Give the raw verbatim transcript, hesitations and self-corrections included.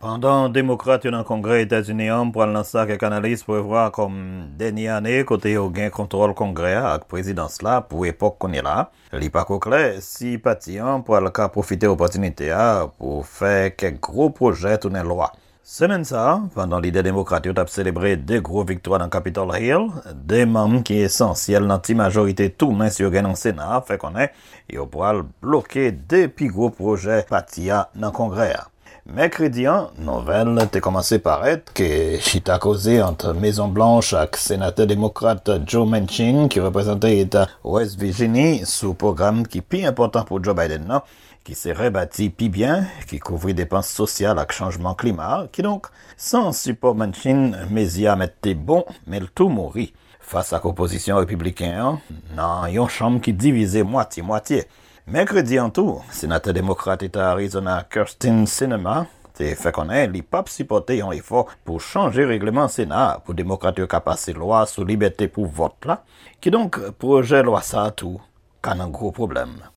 Pandan Demokrat yo nan Kongrè Etazini an pral nan sa kèk analis prevwa kòm dènye ane kote yo gen kontwòl Kongrè a ak prezidans la pou epòk kounye la a, li pako klè si pati an pral ka pwofite opòtinite a pou fè kèk gwo pwojè tounen lwa. Semèn sa a, pandan lidè demokrat yo t ap selebre de gwo viktwa nan Capitol Hill, de manm ki esansyèl nan ti majorite tou mens yo gen nan Sena a fè konnen yo pral bloke de pi gwo pwojè pati a nan Kongrè a. Mèkredi an, nouvèl te kòmanse parèt ke chita koze ant Mezon Blanch ak senatè demokrat Joe Manchin, ki reprezante eta West Virginie, sou pwogram ki pi enpòtan pou Joe Biden nan, ki se rebati pi byen, ki kouvri depans sosyal ak chanjman klima. Kidonk, san sipò Manchin, mezi a mèt te bon, men l tou mouri. Fas ak opozisyon repibliken an, nan yon chanm ki divize mwatye mwatye. Mèkredi an tou, senatè demokrat eta Arizona Kyrsten Sinema te fè konnen li p ap sipòte yon efò pou chanje regleman Sena a pou demokrat yo ka pase lwa sou libète pou vòt la. Kidonk, pwojè lwa sa a tou ka nan gwo pwoblèm.